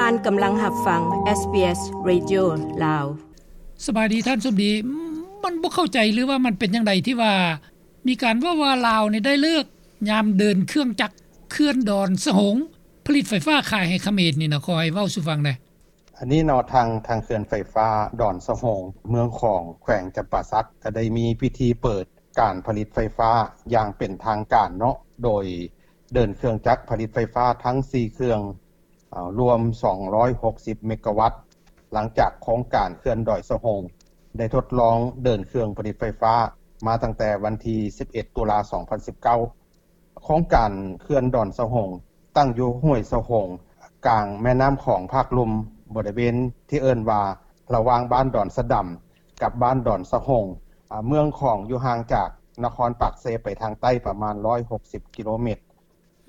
ທ່ານກຳລັງຮັບຟັງ ເອສບີເອສ ເຣດິໂອ ລາວ. ສະບາຍດີທ່ານສົມດີ. ມັນບໍ່ເຂົ້າໃຈ ຫຼືວ່າມັນເປັນຈັ່ງໃດທີ່ວ່າມີການເວົ້າວ່າລາວນີ້ໄດ້ເລີກຍາມເດີນເຄື່ອງຈັກເຂື່ອນດອນສະໂຮງ ຜະລິດໄຟຟ້າຂາຍໃຫ້ຂະເໝນນີ້ນະ, ຂໍໃຫ້ເວົ້າສູ່ຟັງແດ່. ອັນນີ້ເນາະ ທາງ ທາງເຂື່ອນໄຟຟ້າດອນສະໂຮງ ເມືອງຂອງ ແຂວງຈຳປາສັກ ກໍໄດ້ມີພິທີເປີດການຜະລິດໄຟຟ້າຢ່າງເປັນທາງການເນາະ ໂດຍເດີນເຄື່ອງຈັກຜະລິດໄຟຟ້າທັງສີ່ເຄື່ອງ ເອີ ລວມສອງຮ້ອຍຫົກສິບເມກາວັດ ຫຼັງຈາກໂຄງການເຂື່ອນດອນສະໂຮງໄດ້ທົດລອງເດີນເຄື່ອງຜະລິດໄຟຟ້າມາຕັ້ງແຕ່ວັນທີສິບເອັດ ຕຸລາ ສອງພັນສິບເກົ້າ. ໂຄງການເຂື່ອນດອນສະໂຮງ ຕັ້ງຢູ່ຫ້ວຍສະໂຮງ ກາງແມ່ນ້ຳຂອງພາກລຸ່ມ ບໍລິເວນທີ່ເອີ້ນວ່າ ລະຫວ່າງບ້ານດອນສະດຳ ກັບບ້ານດອນສະໂຮງ. ອາ ເມືອງຂອງຢູ່ຫ່າງຈາກນະຄອນປາກເຊໄປທາງໃຕ້ປະມານຮ້ອຍຫົກສິບກິໂລແມັດ.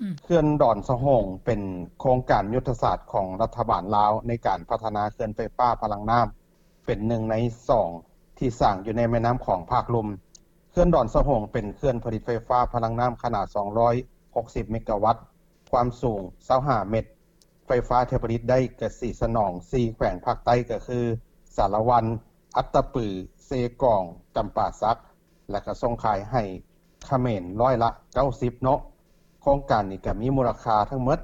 ອືມ ເຂື່ອນດອນສະໂຮງເປັນໂຄງການຍຸດທະສາດຂອງລັດຖະບານລາວໃນການພັດທະນາເຂື່ອນໄຟຟ້າພະລັງນ້ຳ ເປັນໜຶ່ງໃນສອງທີ່ສ້າງຢູ່ໃນແມ່ນ້ຳຂອງພາກລຸ່ມ. ເຂື່ອນດອນສະໂຮງເປັນເຂື່ອນຜະລິດໄຟຟ້າພະລັງນ້ຳຂະໜາດສອງຮ້ອຍຫົກສິບເມກາວັດ ຄວາມສູງຊາວຫ້າແມັດ. ໄຟຟ້າທີ່ຜະລິດໄດ້ກະຊິສະໜອງສີ່ແຂວງພາກໃຕ້ ກໍຄື ສາລະວັນ, ອັດຕະປື, ເຊກອງ, ຈຳປາສັກ ແລະ ກະສົ່ງຂາຍໃຫ້ຂະເໝນຮ້ອຍລະເກົ້າສິບເນາະ. ໂຄງການນີ້ກະມີມູນລະຄ່າທັງໝົດ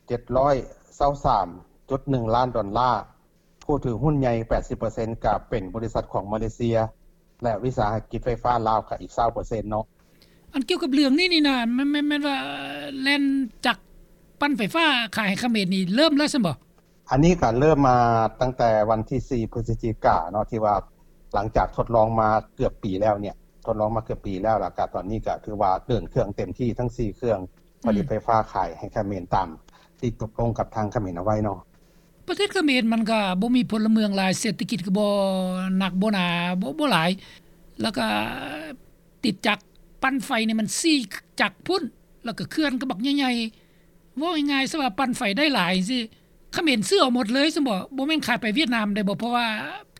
ເຈັດຮ້ອຍຊາວສາມຈຸດໜຶ່ງລ້ານດອນລາ. ຜູ້ຖືຫຸ້ນໃຫຍ່ແປດສິບເປີເຊັນກະເປັນບໍລິສັດຂອງມາເລເຊຍ ແລະ ວິສາຫະກິດໄຟຟ້າລາວກະອີກຊາວເປີເຊັນເນາະ. ອັນກ່ຽວກັບເລື່ອງນີ້ນີ້ນະ ແມ່ນ ແມ່ນ ແມ່ນວ່າແລ່ນຈັກປັ່ນໄຟຟ້າຂາຍໃຫ້ຂະເໝນນີ້ເລີ່ມແລ້ວຊັ້ນບໍ? ອັນນີ້ກະເລີ່ມມາຕັ້ງແຕ່ວັນທີສີ່ ພຶສຈິກາເນາະ ທີ່ວ່າຫຼັງຈາກທົດລອງມາເກືອບປີແລ້ວເນຍ ທົດລອງມາເກືອບປີແລ້ວ ແລ້ວກະຕອນນີ້ກະຖືວ່າເດີນເຄື່ອງເຕັມທີ່ທັງສີ່ເຄື່ອງ ອືມ ຜະລິດໄຟຟ້າຂາຍໃຫ້ຂະເໝນຕາມທີ່ຕົກລົງກັບທາງຂະເໝນເອົາໄວ້ເນາະ. ປະເທດຂະເໝນມັນກະບໍ່ມີພົນລະເມືອງຫຼາຍ ເສດຖະກິດກະບໍ່ໜັກບໍ່ໜາ ບໍ່ ບໍ່ຫຼາຍ ແລ້ວກະຕິດຈັກປັ່ນໄຟນີ້ມັນສີ່ຈັກພຸ້ນ ແລ້ວກະເຂື່ອນກະບັກໃຫຍ່ໆ. ເວົ້າງ່າຍໆຊະວ່າປັ່ນໄຟໄດ້ຫຼາຍຈັ່ງຊີ້ ຂະເໝນຊື້ເອົາໝົດເລີຍຊັ້ນບໍ? ບໍ່ແມ່ນຂາຍໄປຫວຽດນາມໄດ້ບໍ? ເພາະວ່າ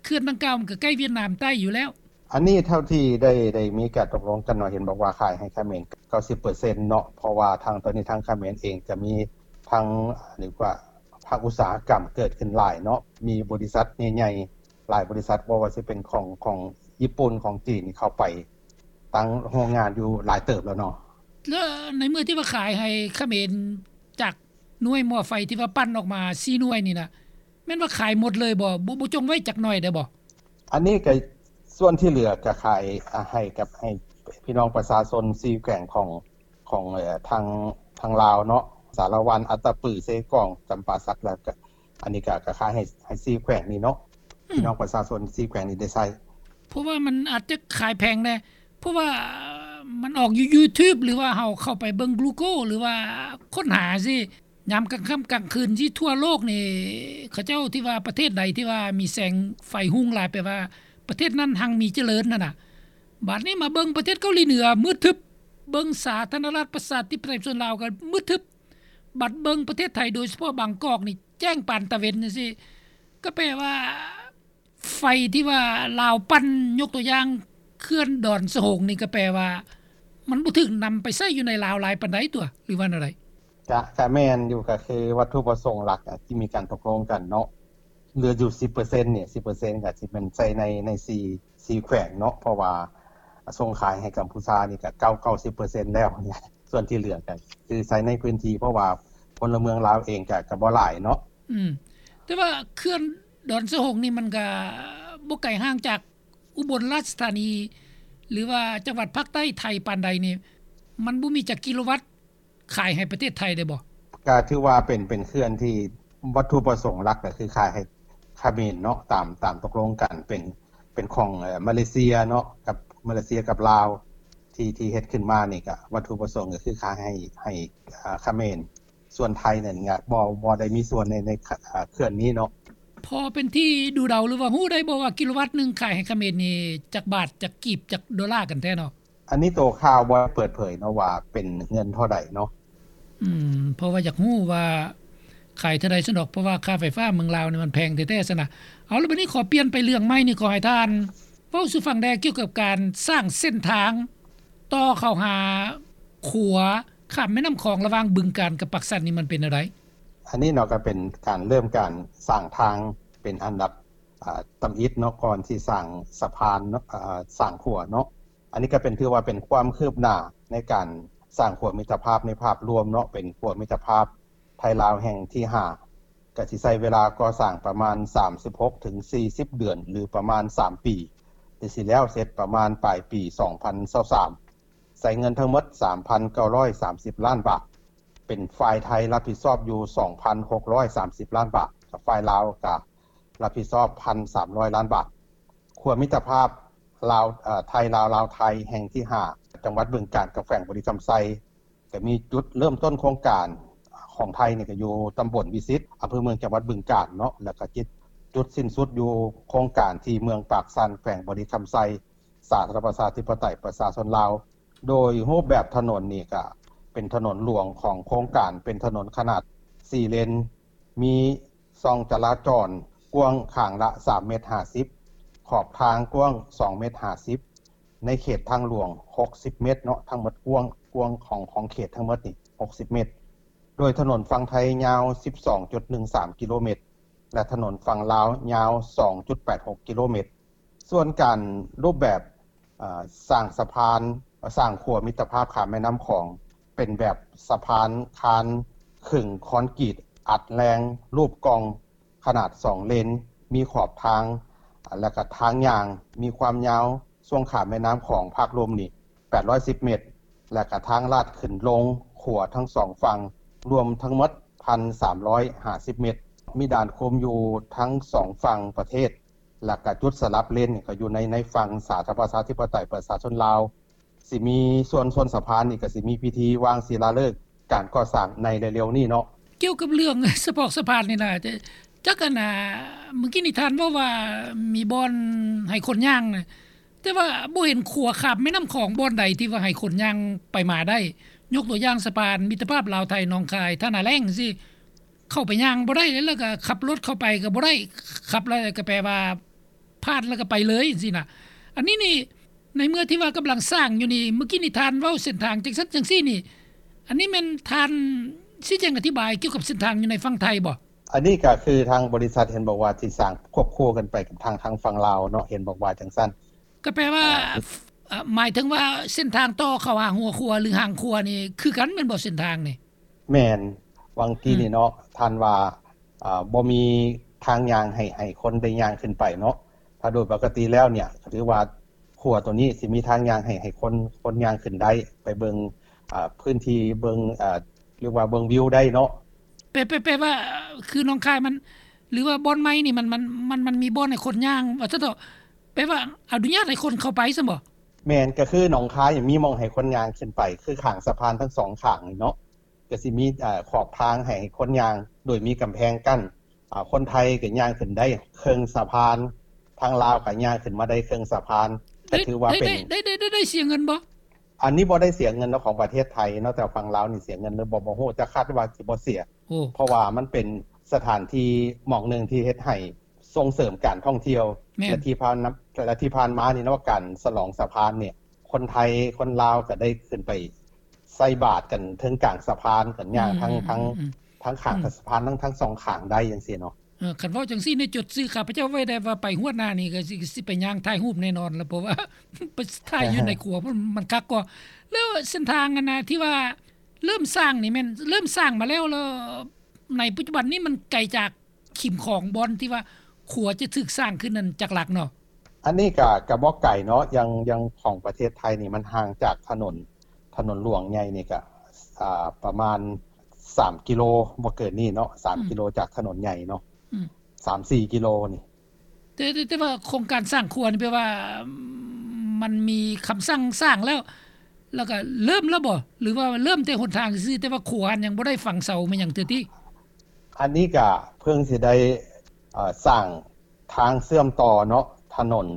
ເຂື່ອນດັ່ງກ່າວມັນກະໃກ້ຫວຽດນາມໃຕ້ຢູ່ແລ້ວ. ອັນນີ້ເທົ່າທີ່ໄດ້ ໄດ້ມີການຕົກລົງກັນເນາະ ເຫັນບອກວ່າຂາຍໃຫ້ຂະເໝນເກົ້າສິບເປີເຊັນເນາະ ເພາະວ່າທາງ ຕອນນີ້ທາງຂະເໝນເອງກະມີທັງ ເອີ້ນວ່າ ພາກອຸດສາຫະກຳເກີດຂຶ້ນຫຼາຍເນາະ ມີບໍລິສັດໃຫຍ່ໆຫຼາຍບໍລິສັດ ບໍ່ວ່າຊິເປັນຂອງ ຂອງຍີ່ປຸ່ນ ຂອງຈີນ ເຂົ້າໄປຕັ້ງໂຮງງານຢູ່ຫຼາຍເຕີບແລ້ວເນາະ. ແລ້ວໃນເມື່ອທີ່ວ່າຂາຍໃຫ້ຂະເໝນ ຈາກໜ່ວຍໝໍ້ໄຟທີ່ວ່າປັ່ນອອກມາສີ່ໜ່ວຍນີ້ນະ ແມ່ນວ່າຂາຍໝົດເລີຍບໍ? ບໍ່ ບໍ່ຈົ່ງໄວ້ຈັກໜ່ອຍໄດ້ບໍ? ອັນນີ້ກະສ່ວນທີ່ເຫຼືອກະຂາຍ ອາ ໃຫ້ກັບ ໃຫ້ພີ່ນ້ອງປະຊາຊົນສີ່ແຂວງຂອງ ຂອງ ເອີ ທາງ ທາງລາວເນາະ ສາລະວັນ, ອັດຕະປື, ເຊກອງ, ຈຳປາສັກ ແລ້ວກະອັນນີ້ກະ ກະຂາຍໃຫ້ ໃຫ້ສີ່ແຂວງນີ້ເນາະ ອືມ ພີ່ນ້ອງປະຊາຊົນສີ່ແຂວງນີ້ໄດ້ໃຊ້. ເພາະວ່າມັນອາດຈະຂາຍແພງແດ່ ເພາະວ່າມັນອອກຢູ່ຢູທູບ ຫຼືວ່າເຮົາເຂົ້າໄປເບິ່ງກູໂກ ຫຼືວ່າຄົ້ນຫາຊີ້ ຍາມກາງຄ່ຳກາງຄືນຊີ້ ທົ່ວໂລກນີ້ ເຂົາເຈົ້າທີ່ວ່າປະເທດໃດທີ່ວ່າມີແສງໄຟຮຸ່ງຫຼາຍ ແປວ່າປະເທດນັ້ນຮັ່ງມີຈະເລີນຫັ້ນນະ. ບາດນີ້ມາເບິ່ງປະເທດເກົາຫຼີເໜືອມືດທຶບ, ເບິ່ງສາທາລະນະລັດປະຊາທິປະໄຕປະຊາຊົນລາວກໍມືດທຶບ, ບັດເບິ່ງປະເທດໄທ ໂດຍສະເພາະບາງກອກນີ້ແຈ້ງປານຕາເວັນຈັ່ງຊີ້ ກໍແປວ່າ ໄຟທີ່ວ່າລາວປັ່ນ ຍົກຕົວຢ່າງເຂື່ອນດອນສະໂຮງນີ້ ກໍແປວ່າມັນບໍ່ຖືກນຳໄປໃຊ້ຢູ່ໃນລາວຫຼາຍປານໃດຕົວະ ຫຼືວ່າແນວໃດ? ກະ ກະແມ່ນຢູ່ ກະຄືວັດຖຸປະສົງຫຼັກ ອາ ທີ່ມີການຕົກລົງກັນເນາະ ເຫຼືອຢູ່ສິບເປີເຊັນນີ້ ສິບເປີເຊັນກະຊິແມ່ນໃຊ້ໃນ ໃນສີ່ ສີ່ແຂວງເນາະ ເພາະວ່າສົ່ງຂາຍໃຫ້ກຳພູຊານີ້ກະເກົ້າ ເກົ້າສິບເປີເຊັນແລ້ວ ສ່ວນທີ່ເຫຼືອກະຄືໃຊ້ໃນພື້ນທີ່ ເພາະວ່າພົນລະເມືອງລາວເອງກະ ກະບໍ່ຫຼາຍເນາະ. ອືມ ແຕ່ວ່າເຂື່ອນ ດອນສະໂຮງນີ້ມັນກະບໍ່ໄກຫ່າງຈາກອຸບົນລາຊະທານີ ຫຼືວ່າຈັງຫວັດພາກໃຕ້ໄທປານໃດນີ້ ມັນບໍ່ມີຈັກກິໂລວັດຂາຍໃຫ້ປະເທດໄທໄດ້ບໍ່? ກະຖືວ່າເປັນ ເປັນເຂື່ອນທີ່ວັດຖຸປະສົງຫຼັກກະຄືຂາຍໃຫ້ຂະເໝນເນາະ ຕາມ ຕາມຕົກລົງກັນ ເປັນ ເປັນຂອງ ເອີ ມາເລເຊຍເນາະ ກັບ ມາເລເຊຍກັບລາວ ທີ່ ທີ່ເຮັດຂຶ້ນມານີ້ກະ ວັດຖຸປະສົງກະຄືຂາຍໃຫ້ ໃຫ້ ເອີ ຂະເໝນ. ສ່ວນໄທນັ້ນກະບໍ່ ບໍ່ໄດ້ມີສ່ວນໃນ ໃນ ເຂື່ອນນີ້ເນາະ. ພໍເປັນທີ່ດູເດົາ ຫຼືວ່າຮູ້ໄດ້ບໍ່ວ່າກິໂລວັດໜຶ່ງຂາຍໃຫ້ຂະເໝນນີ້ຈັກບາດ ຈັກກີບ ຈັກໂດລາກັນແທ້ເນາະ? ອັນນີ້ໂຕຂ່າວບໍ່ໄດ້ເປີດເຜີຍເນາະວ່າເປັນເງິນເທົ່າໃດເນາະ. ອືມ ເພາະວ່າຢາກຮູ້ວ່າຂາຍເທົ່າໃດຊັ້ນດອກ ເພາະວ່າຄ່າໄຟຟ້າເມືອງລາວນີ້ມັນແພງແທ້ໆຊັ້ນນະ. ເອົາ ແລ້ວບັດນີ້ຂໍປ່ຽນໄປເລື່ອງໃໝ່ນີ້ ຂໍໃຫ້ທ່ານເວົ້າສູ່ຟັງແດ່ ກ່ຽວກັບການສ້າງເສັ້ນທາງ ຕໍ່ເຂົ້າຫາຂົວຂ້າມແມ່ນ້ຳຂອງລະຫວ່າງບຶງການກັບປາກຊັນນີ້ ມັນເປັນແນວໃດ? ອັນນີ້ເນາະ ກໍເປັນການເລີ່ມການສ້າງທາງເປັນອັນດັບ ອ່າ ທຳອິດເນາະ ກ່ອນຊິສ້າງສະພານເນາະ ອ່າ ສ້າງຂົວເນາະ. ອັນນີ້ກໍເປັນ ຖືວ່າເປັນຄວາມຄືບໜ້າໃນການສ້າງຂົວມິດຕະພາບໃນພາບລວມເນາະ, ເປັນຂົວມິດຕະພາບໄທລາວແຫ່ງທີຫ້າ ກໍຊິໃຊ້ເວລາກໍ່ສ້າງປະມານສາມສິບຫົກເຖິງສີ່ສິບເດືອນ ຫຼື ປະມານສາມປີ ແລະ ຊິແລ້ວເສັດປະມານປາຍປີສອງພັນຊາວສາມ ໃຊ້ເງິນທັງໝົດສາມພັນເກົ້າຮ້ອຍສາມສິບລ້ານບາດ, ເປັນຝ່າຍໄທຮັບຜິດຊອບຢູ່ສອງພັນຫົກຮ້ອຍສາມສິບລ້ານບາດ, ກັບຝ່າຍລາວກໍຮັບຜິດຊອບພັນສາມຮ້ອຍລ້ານບາດ. ຂົວມິດຕະພາບລາວ ເອີ ໄທລາວ ລາວໄທແຫ່ງທີຫ້າ ຈັງຫວັດບຶງການ ກັບແຂວງບໍລິຄຳໄຊ ກໍມີຈຸດເລີ່ມຕົ້ນໂຄງການຂອງໄທນີ້ ກໍຢູ່ຕຳບົນວິສິດ ອຳເພີເມືອງ ຈັງຫວັດບຶງການເນາະ, ແລ້ວກໍຈຸດ ຈຸດສິ້ນສຸດຢູ່ໂຄງການທີ່ເມືອງປາກຊັນ ແຂວງບໍລິຄຳໄຊ ສາທາລະນະລັດ ປະຊາທິປະໄຕ ປະຊາຊົນລາວ. ໂດຍຮູບແບບຖະໜົນນີ້ກະເປັນຖະໜົນຫຼວງຂອງໂຄງການ ເປັນຖະໜົນຂະໜາດສີ່ເລນ, ມີຊ່ອງຈະລາຈອນກວ້າງຂ້າງລະສາມເມັດຫ້າສິບ, ຂອບທາງກວ້າງສອງເມັດຫ້າສິບ, ໃນເຂດທາງຫຼວງຫົກສິບເມັດເນາະ, ທັງໝົດກວ້າງ ກວ້າງຂອງ ຂອງເຂດທັງໝົດນີ້ຫົກສິບເມັດ. ໂດຍຖະໜົນຝັ່ງໄທຍາວສິບສອງຈຸດໜຶ່ງສາມກິໂລເມັດ ແລະ ຖະໜົນຝັ່ງລາວຍາວສອງຈຸດແປດຫົກກິໂລເມັດ. ສ່ວນການຮູບແບບ ເອີ ສ້າງສະພານ ສ້າງຂົວມິດຕະພາບຂ້າມແມ່ນ້ຳຂອງ ເປັນແບບສະພານຄານເຄິ່ງຄອນກຣີດອັດແຮງ ຮູບກ່ອງ ຂະໜາດສອງເລນ, ມີຂອບທາງ ແລະ ກະທາງຍ່າງ, ມີຄວາມຍາວຊ່ວງຂ້າມແມ່ນ້ຳຂອງພາກລວມນີ້ແປດຮ້ອຍສິບເມັດ ແລະ ກະທາງລາດຂຶ້ນລົງຂົວທັງສອງຝັ່ງ ລວມທັງໝົດພັນສາມຮ້ອຍຫ້າສິບເມັດ, ມີດ່ານຄຸມຢູ່ທັງສອງຝັ່ງປະເທດ ແລະ ກະຈຸດສະຫຼັບເລນກໍຢູ່ໃນ ໃນຝັ່ງສາທາລະນະລັດ ປະຊາທິປະໄຕ ປະຊາຊົນລາວ. ຊິມີສ່ວນ ສ່ວນສະພານນີ້ກໍຊິມີພິທີວາງສິລາເລີກການກໍ່ສ້າງໃນເລັວໆນີ້ເນາະ. ກ່ຽວກັບເລື່ອງສະເພາະສະພານນີ້ນະ ຈ- ຈັກອັນນ່າ ມື້ກີ້ນີ້ທ່ານເວົ້າວ່າມີບ່ອນໃຫ້ຄົນຍ່າງນະ ແຕ່ວ່າບໍ່ເຫັນຂົວຂ້າມແມ່ນ້ຳຂອງບ່ອນໃດທີ່ວ່າໃຫ້ຄົນຍ່າງໄປມາໄດ້. ຍົກຕົວຢ່າງສະພານມິດຕະພາບລາວໄທໜອງຄາຍ ທ່ານາແລ້ງຊີ້ ເຂົ້າໄປຍ່າງບໍ່ໄດ້ເລີຍ ແລ້ວກໍຂັບລົດເຂົ້າໄປກໍບໍ່ໄດ້, ຂັບແລ້ວກໍແປວ່າຜ່ານແລ້ວກໍໄປເລີຍຊີ້ນະ. ອັນນີ້ນີ້ ໃນເມື່ອທີ່ວ່າກຳລັງສ້າງຢູ່ນີ້ ມື້ກີ້ນີ້ທ່ານເວົ້າເສັ້ນທາງຈັ່ງຊັ້ນຈັ່ງຊີ້ນີ້ ອັນນີ້ແມ່ນທ່ານຊີ້ແຈງອະທິບາຍກ່ຽວກັບເສັ້ນທາງຢູ່ໃນຝັ່ງໄທບໍ່? ອັນນີ້ກໍຄືທາງບໍລິສັດເຫັນບອກວ່າຊິສ້າງຄວບຄູ່ກັນໄປກັບທາງ ທາງຝັ່ງລາວເນາະ, ເຫັນບອກວ່າຈັ່ງຊັ້ນ. ກໍແປວ່າ ອ່າ ເອີ ໝາຍເຖິງວ່າເສັ້ນທາງຕໍ່ເຂົ້າຫາຫົວຂົວ ຫຼື ຫາງຂົວນີ້ຄືກັນແມ່ນບໍ່ ເສັ້ນທາງນີ້? ແມ່ນ, ຫວ່າງກີ້ນີ້ເນາະ ອືມ ທ່ານວ່າ ເອີ ບໍ່ມີທາງຍ່າງໃຫ້ ໃຫ້ຄົນໄດ້ຍ່າງຂຶ້ນໄປເນາະ. ຖ້າໂດຍປົກກະຕິແລ້ວເນຍ ກໍຖືວ່າຂົວໂຕນີ້ຊິມີທາງຍ່າງໃຫ້ ໃຫ້ຄົນ ຄົນຍ່າງຂຶ້ນໄດ້ ໄປເບິ່ງ ເອີ ພື້ນທີ່ ເບິ່ງ ເອີ ຫຼືວ່າເບິ່ງວິວໄດ້ເນາະ. ແປ ແປ ແປວ່າ ຄືໜອງຄາຍມັນ ຫຼືວ່າບ່ອນໃໝ່ນີ້ ມັນ ມັນ ມັນ ມັນມີບ່ອນໃຫ້ຄົນຍ່າງ ວ່າຊັ້ນເຖາະ, ແປວ່າອະນຸຍາດໃຫ້ຄົນເຂົ້າໄປຊັ້ນບໍ່? ແມ່ນ, ກໍຄືໜອງຄາຍມີໝ່ອງໃຫ້ຄົນຍ່າງຂຶ້ນໄປ ຄືຂ້າງສະພານທັງສອງຂ້າງນີ້ເນາະ, ກໍຊິມີ ເອີ ຂອບທາງໃຫ້ຄົນຍ່າງ ໂດຍມີກຳແພງກັ້ນ. ອາ ຄົນໄທກໍຍ່າງຂຶ້ນໄດ້ເຄິ່ງສະພານ, ທາງລາວກໍຍ່າງຂຶ້ນມາໄດ້ເຄິ່ງສະພານ, ກໍຖືວ່າເປັນ ໄດ້ ໄດ້ ໄດ້ ໄດ້ ໄດ້ເສຍເງິນບໍ່? ອັນນີ້ບໍ່ໄດ້ເສຍເງິນເນາະ ຂອງປະເທດໄທເນາະ, ແຕ່ຝັ່ງລາວນີ້ເສຍເງິນຫຼືບໍ່ ບໍ່ຮູ້, ແຕ່ຄາດວ່າຊິບໍ່ເສຍ. ໂອ້ ເພາະວ່າມັນເປັນສະຖານທີ່ໝ່ອງໜຶ່ງທີ່ເຮັດໃຫ້ສົ່ງເສີມການທ່ອງທ່ຽວ. ແມ່ນ. ແລະ ທີ່ຜ່ານ ແລະ ທີ່ຜ່ານມານີ້ເນາະ ການສະຫຼອງສະພານນີ້ ຄົນໄທຄົນລາວກໍໄດ້ຂຶ້ນໄປໃສ່ບາດກັນເທິງກາງສະພານ ກັນຍ່າງ ອືມ ທັງ ອືມ ທັງ ອືມ ທັງຂ້າງ ອືມ ສະພານ ທັງ ທັງສອງຂ້າງໄດ້ຈັ່ງຊີ້ເນາະ. ເອີ ຄັນເວົ້າຈັ່ງຊີ້ນີ້ ຈົດຊື່ຂ້າພະເຈົ້າໄວ້ໄດ້ວ່າ ໄປຮອດໜ້ານີ້ກໍຊິ ຊິໄປຍ່າງຖ່າຍຮູບແນ່ນອນລະ ເພາະວ່າໄປຖ່າຍຢູ່ໃນຂົວ ມັນ ມັນຄັກກວ່າ. ແລ້ວເສັ້ນທາງອັນນະ ທີ່ວ່າເລີ່ມສ້າງນີ້ແມ່ນເລີ່ມສ້າງມາແລ້ວ ແລ້ວໃນປັດຈຸບັນນີ້ມັນໄກຈາກ ຂິມຂອງບ່ອນທີ່ວ່າຂົວຈະຖືກສ້າງຂຶ້ນນັ້ນຈັກຫຼັກເນາະ? ອັນນີ້ກະ ກະບໍ່ໄກເນາະ, ຢ່າງ ຢ່າງຂອງປະເທດໄທນີ້ ມັນຫ່າງຈາກຖະໜົນ ຖະໜົນຫຼວງໃຫຍ່ນີ້ກະ ອ່າ ປະມານສາມກິໂລ ບໍ່ເກີນນີ້ເນາະ, ສາມ ອືມ ກິໂລຈາກຖະໜົນໃຫຍ່ເນາະ, ອືມ ສາມສີ່ກິໂລນີ້. ແຕ່ ແຕ່ ແຕ່ວ່າໂຄງການສ້າງຂົວນີ້ແປວ່າ ມັນມີຄຳສັ່ງສ້າງແລ້ວ ແລ້ວກະເລີ່ມແລ້ວບໍ່? ຫຼືວ່າເລີ່ມແຕ່ຫົນທາງຊື່ໆ ແຕ່ວ່າຂົວຫັ້ນຍັງບໍ່ໄດ້ຝັງເສົາແມ່ນຫຍັງເທື່ອຕິ? ອັນນີ້ກະເພິ່ງຊິໄດ້ ເອີ ສ້າງທາງເຊື່ອມຕໍ່ເນາະ ຖະໜົນ,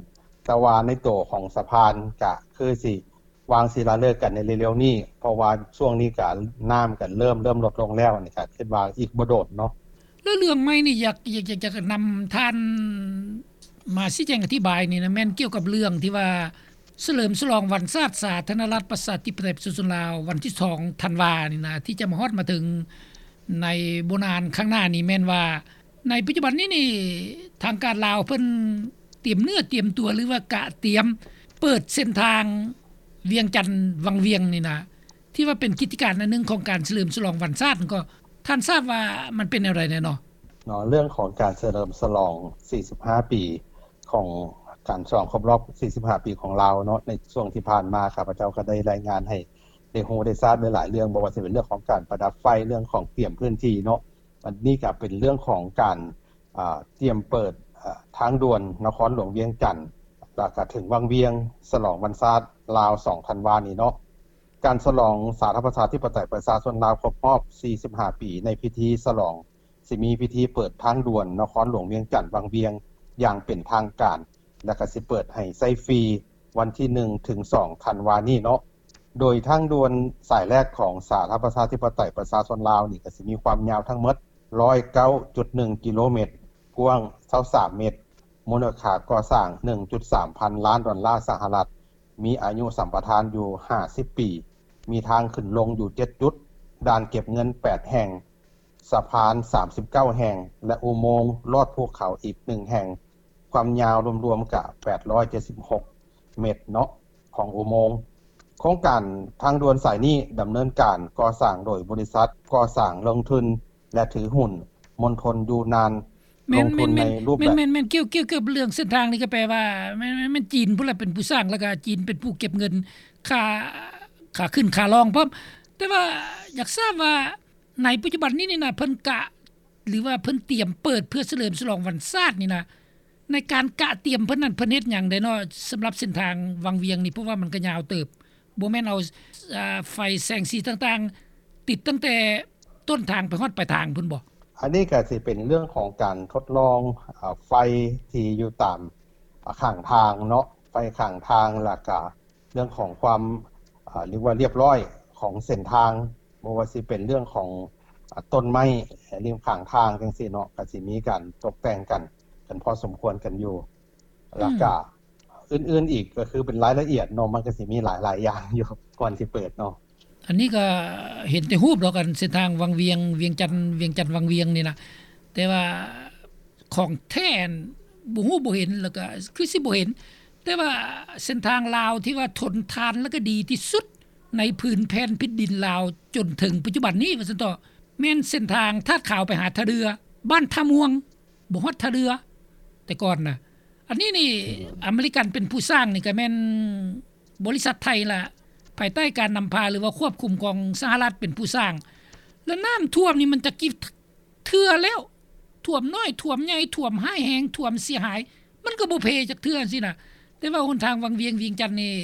ແຕ່ວ່າໃນໂຕຂອງສະພານກະຄືຊິວາງສິລາເລີກກັນໃນເລັວໆນີ້, ເພາະວ່າຊ່ວງນີ້ກະນ້ຳກະເລີ່ມ ເລີ່ມລົດລົງແລ້ວ, ອັນນີ້ກະຄິດວ່າອີກບໍ່ດົນເນາະ. ແລ້ວເລື່ອງໃໝ່ນີ້ ຢາກ ຢາກ ຢາກ ຢາກນຳທ່ານມາຊີ້ແຈງອະທິບາຍນີ້ນະ ແມ່ນກ່ຽວກັບເລື່ອງທີ່ວ່າ ສະເຫຼີມສະຫຼອງວັນຊາດສາທາລະນະລັດ ປະຊາທິປະໄຕ ປະຊາຊົນລາວ ວັນທີສອງທັນວານີ້ນະ ທີ່ຈະມາຮອດມາເຖິງ ໃນບໍ່ນານຂ້າງໜ້ານີ້ ແມ່ນວ່າໃນປັດຈຸບັນນີ້ນີ້ ທາງການລາວເພິ່ນຕຽມເນື້ອຕຽມຕົວ ຫຼືວ່າກະຕຽມເປີດເສັ້ນທາງວຽງຈັນວັງວຽງນີ້ນະ ທີ່ວ່າເປັນກິດຈະການອັນໜຶ່ງຂອງການສະເຫຼີມສະຫຼອງວັນຊາດນັ້ນ ກໍທ່ານຊາບວ່າມັນເປັນແນວໃດແດ່ເນາະ? ເນາະ ເລື່ອງຂອງການສະເຫຼີມສະຫຼອງສີ່ສິບຫ້າປີ ຂອງການສະຫຼອງຄົບຮອບສີ່ສິບຫ້າປີຂອງລາວເນາະ ໃນຊ່ວງທີ່ຜ່ານມາ ຂ້າພະເຈົ້າກໍໄດ້ລາຍງານໃຫ້ໄດ້ຮູ້ໄດ້ຊາບຫຼາຍໆເລື່ອງ ບໍ່ວ່າຈະເປັນເລື່ອງຂອງການປະດັບໄຟ ເລື່ອງຂອງກຽມພື້ນທີ່ເນາະ. ອັນນີ້ກໍເປັນເລື່ອງຂອງການ ອາ ຕຽມເປີດ ອາ ທາງດ່ວນນະຄອນຫຼວງວຽງຈັນ ແລ້ວກໍເຖິງວັງວຽງ ສະຫຼອງວັນຊາດລາວສອງທັນວານີ້ເນາະ. ການສະຫຼອງສາທາລະນະລັດ ປະຊາທິປະໄຕ ປະຊາຊົນລາວ ຄົບຮອບສີ່ສິບຫ້າປີ ໃນພິທີສະຫຼອງ ຊິມີພິທີເປີດທາງດ່ວນນະຄອນຫຼວງວຽງຈັນວັງວຽງຢ່າງເປັນທາງການ ແລະ ກະຊິເປີດໃຫ້ໃຊ້ຟຣີວັນທີໜຶ່ງ ເຖິງ ສອງ ທັນວານີ້ເນາະ. ໂດຍທາງດ່ວນສາຍແລກຂອງສາທາລະນະລັດ ປະຊາທິປະໄຕ ປະຊາຊົນລາວນີ້ ກະຊິມີຄວາມຍາວທັງໝົດຮ້ອຍເກົ້າຈຸດໜຶ່ງກິໂລແມັດ, ກວ້າງຊາວສາມແມັດ, ມູນຄ່າກໍ່ສ້າງໜຶ່ງຈຸດສາມພັນລ້ານດອນລາສະຫະລັດ, ມີອາຍຸສຳປະທານຢູ່ຫ້າສິບປີ, ມີທາງຂຶ້ນລົງຢູ່ເຈັດຈຸດ, ດ່ານເກັບເງິນແປດແຫ່ງ, ສະພານສາມສິບເກົ້າແຫ່ງ ແລະ ອຸໂມງລອດພູເຂົາອີກໜຶ່ງແຫ່ງ, ຄວາມຍາວລວມໆກະແປດຮ້ອຍເຈັດສິບຫົກແມັດເນາະ ຂອງອຸໂມງ. ໂຄງການທາງດ່ວນສາຍນີ້ດຳເນີນການກໍ່ສ້າງໂດຍບໍລິສັດກໍ່ສ້າງລົງທຶນ ແລະ ຖືຫຸ້ນມົນທົນຢູ່ນານ ແມ່ນ ລົງທຶນໃນຮູບແບບ ແມ່ນໆໆ ກ່ຽວ ກ່ຽວກັບເລື່ອງເສັ້ນທາງນີ້ ກໍແປວ່າແມ່ນ ແມ່ນ ແມ່ນຈີນພຸ້ນລະເປັນຜູ້ສ້າງ ແລ້ວກໍຈີນເປັນຜູ້ເກັບເງິນຄ່າ ຄ່າຂຶ້ນຄ່າລ່ອງພ້ອມ. ແຕ່ວ່າຢາກຊາບວ່າໃນປັດຈຸບັນນີ້ນີ້ນະ ເພິ່ນກະ ຫຼືວ່າເພິ່ນຕຽມເປີດເພື່ອສະເຫຼີມສະຫຼອງວັນຊາດນີ້ນະ ໃນການກະຕຽມເພິ່ນນັ້ນ ເພິ່ນເຮັດຫຍັງແດ່ເນາະ ສຳລັບເສັ້ນທາງວັງວຽງນີ້? ເພາະວ່າມັນກໍຍາວເຕີບ ບໍ່ແມ່ນເອົາ ອາ ໄຟແສງສີຕ່າງໆ ຕິດຕັ້ງແຕ່ຕົ້ນທາງໄປຮອດປາຍທາງພຸ້ນບໍ? ອັນນີ້ກໍຊິເປັນເລື່ອງຂອງການທົດລອງ ອາ ໄຟທີ່ຢູ່ຕາມ ອາ ຂ້າງທາງເນາະ ໄຟຂ້າງທາງ ແລ້ວກະເລື່ອງຂອງຄວາມ ອາ ເອີ້ນວ່າລຽບຮ້ອຍຂອງເສັ້ນທາງ ບໍ່ວ່າຊິເປັນເລື່ອງຂອງ ອາ ຕົ້ນໄມ້ລິມຂ້າງທາງຈັ່ງຊີ້ເນາະ ກໍຊິມີການຕົກແຕ່ງກັນ ກັນພໍສົມຄວນກັນຢູ່ ແລ້ວກະ ອືມ ອື່ນໆອີກ ກໍຄືເປັນລາຍລະອຽດເນາະ ມັນກໍຊິມີຫຼາຍໆຢ່າງຢູ່ ກ່ອນຊິເປີດເນາະ. ອັນນີ້ກໍເຫັນແຕ່ຮູບດອກ ອັນເສັ້ນທາງວັງວຽງ ວຽງຈັນ ວຽງຈັນວັງວຽງນີ້ນະ ແຕ່ວ່າຂອງແທ້ຫັ້ນບໍ່ຮູ້ບໍ່ເຫັນ ແລ້ວກໍຄືຊິບໍ່ເຫັນ. ແຕ່ວ່າເສັ້ນທາງລາວທີ່ວ່າທົນທານ ແລະ ກໍດີທີ່ສຸດໃນພື້ນແຜ່ນແຜ່ນດິນລາວຈົນເຖິງປັດຈຸບັນນີ້ວ່າຊັ້ນເຖາະ ແມ່ນເສັ້ນທາງທາດຂາວໄປຫາທ່າເຮືອ ບ້ານທ່າມ່ວງ ບໍ່ຮອດທ່າເຮືອ ແຕ່ກ່ອນນະ. ອັນນີ້ນີ້ ອືມ ອາເມລິກັນເປັນຜູ້ສ້າງນີ້ ກໍແມ່ນບໍລິສັດໄທລະ ພາຍໃຕ້ການນຳພາ ຫຼືວ່າຄວບຄຸມຂອງສະຫະລັດເປັນຜູ້ສ້າງ ແລະ ນ້ຳຖ້ວມນີ້ມັນຈັກກີ່ເທື່ອແລ້ວ ຖ້ວມນ້ອຍ ຖ້ວມໃຫຍ່ ຖ້ວມຮ້າຍແຮງ ຖ້ວມເສຍຫາຍ ມັນກໍບໍ່ເພຈັກເທື່ອຊີ້ນະ. ແຕ່ວ່າຫົນທາງວັງວຽງ ວຽງຈັນນີ້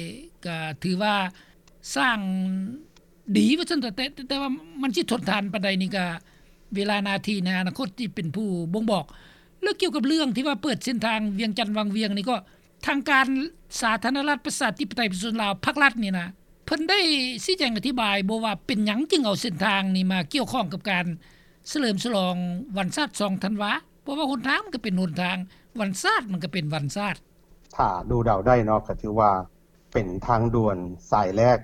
ກໍຖືວ່າສ້າງດີວ່າຊັ້ນເຖາະ ແຕ່ ແຕ່ວ່າມັນຊິທົນທານປານໃດນີ້ ກໍເວລາໜ້າທີ່ໃນອະນາຄົດທີ່ເປັນຜູ້ບົ່ງບອກ. ແລ້ວກ່ຽວກັບເລື່ອງທີ່ວ່າເປີດເສັ້ນທາງວຽງຈັນວັງວຽງນີ້ ກໍທາງການສາທາລະນະລັດ ປະຊາທິປະໄຕ ປະຊາຊົນລາວ ພາກລັດນີ້ນະ ເພິ່ນໄດ້ຊີ້ແຈງອະທິບາຍບໍ່ວ່າເປັນຫຍັງຈຶ່ງເອົາເສັ້ນທາງນີ້ມາກ່ຽວຂ້ອງກັບການສະເຫຼີມສະຫຼອງວັນຊາດສອງທັນວາ? ເພາະວ່າຫົນທາງມັນກໍເປັນຫົນທາງ ວັນຊາດມັນກໍເປັນວັນຊາດ. ຖ້າດູເດົາໄດ້ເນາະ ກໍຖືວ່າເປັນທາງດ່ວນສາຍແລກ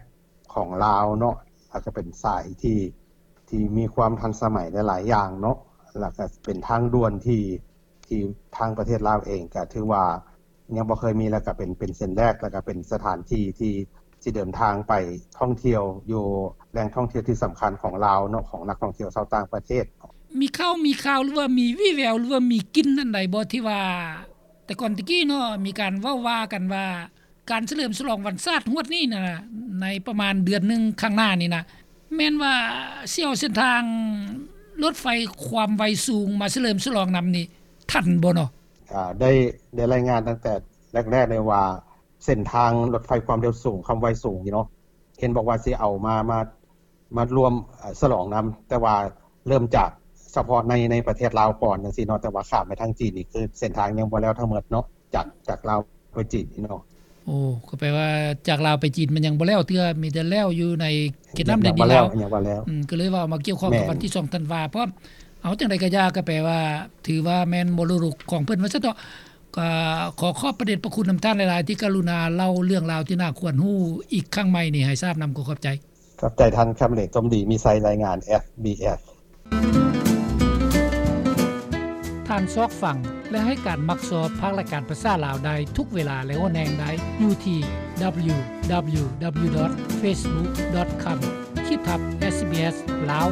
ຂອງລາວເນາະ ແລ້ວກໍເປັນສາຍທີ່ ທີ່ມີຄວາມທັນສະໄໝຫຼາຍໆຢ່າງເນາະ ແລ້ວກໍເປັນທາງດ່ວນທີ່ ທີ່ທາງປະເທດລາວເອງກໍຖືວ່າຍັງບໍ່ເຄີຍມີ ແລ້ວກໍເປັນ ເປັນເສັ້ນແລກ ແລ້ວກໍເປັນສະຖານທີ່ທີ່ ທີ່ເດີນທາງໄປທ່ອງທ່ຽວຢູ່ແຫຼ່ງທ່ອງທ່ຽວທີ່ສຳຄັນຂອງລາວເນາະ ຂອງນັກທ່ອງທ່ຽວຊາວຕ່າງປະເທດ. ມີຂ່າວ ມີຂ່າວ ຫຼືວ່າມີວີ່ແວວ ຫຼືວ່າມີກິ່ນອັນໃດບໍ່ ທີ່ວ່າແຕ່ກ່ອນແຕ່ກີ້ເນາະ ມີການເວົ້າວ່າກັນວ່າ ການສະເຫຼີມສະຫຼອງວັນຊາດຮວດນີ້ນະ ໃນປະມານເດືອນໜຶ່ງຂ້າງໜ້ານີ້ນະ ແມ່ນວ່າຊິເອົາເສັ້ນທາງລົດໄຟຄວາມໄວສູງມາສະເຫຼີມສະຫຼອງນຳນີ້ ທັນບໍ່ເນາະ? ອາ ໄດ້ ໄດ້ລາຍງານຕັ້ງແຕ່ແລກໆເລີຍວ່າ ເສັ້ນທາງລົດໄຟຄວາມເລັວສູງ ຄວາມໄວສູງນີ້ເນາະ ເຫັນບອກວ່າຊິເອົາມາ ມາ ມາລວມ ເອີ ສະຫຼອງນຳ ແຕ່ວ່າເລີ່ມຈາກສະເພາະໃນ ໃນປະເທດລາວກ່ອນຈັ່ງຊີ້ເນາະ ແຕ່ວ່າຂ້າມໄປທາງຈີນນີ້ ຄືເສັ້ນທາງຍັງບໍ່ແລ້ວທັງໝົດເນາະ ຈາກ ຈາກລາວໄປຈີນນີ້ເນາະ. ໂອ້ ກໍແປວ່າຈາກລາວໄປຈີນມັນຍັງບໍ່ແລ້ວເທື່ອ ມີແຕ່ແລ້ວຢູ່ໃນເຂດນ້ຳແດນດິນລາວ ຍັງບໍ່ແລ້ວ ອືມ ກໍເລີຍວ່າເອົາມາກ່ຽວຂ້ອງກັບວັນທີສອງທັນວາ ເພາະເອົາຈັ່ງໃດກໍຢ່າ ກໍແປວ່າຖືວ່າແມ່ນມໍລະດົກຂອງເພິ່ນວ່າຊັ້ນເຖາະ. ກໍຂໍຂອບພະເດດພະຄຸນນຳທ່ານຫຼາຍໆ ທີ່ກະລຸນາເລົ່າເລື່ອງລາວທີ່ໜ້າຄວນຮູ້ອີກຄັ້ງໃໝ່ນີ້ໃຫ້ຊາບນຳ ກໍຂອບໃຈ. ຂອບໃຈທ່ານຄຳເລດ ສົມດີມີໄຊ ລາຍງານ ເອສບີເອສ. ທ່ານຊອກຟັງ ແລະ ໃຫ້ການມັກຊອບພາກລາຍການພາສາລາວໄດ້ທຸກເວລາ ແລະ ຫົວແຫ່ງໄດ້ຢູ່ທີ່ www.facebook.com/sbslao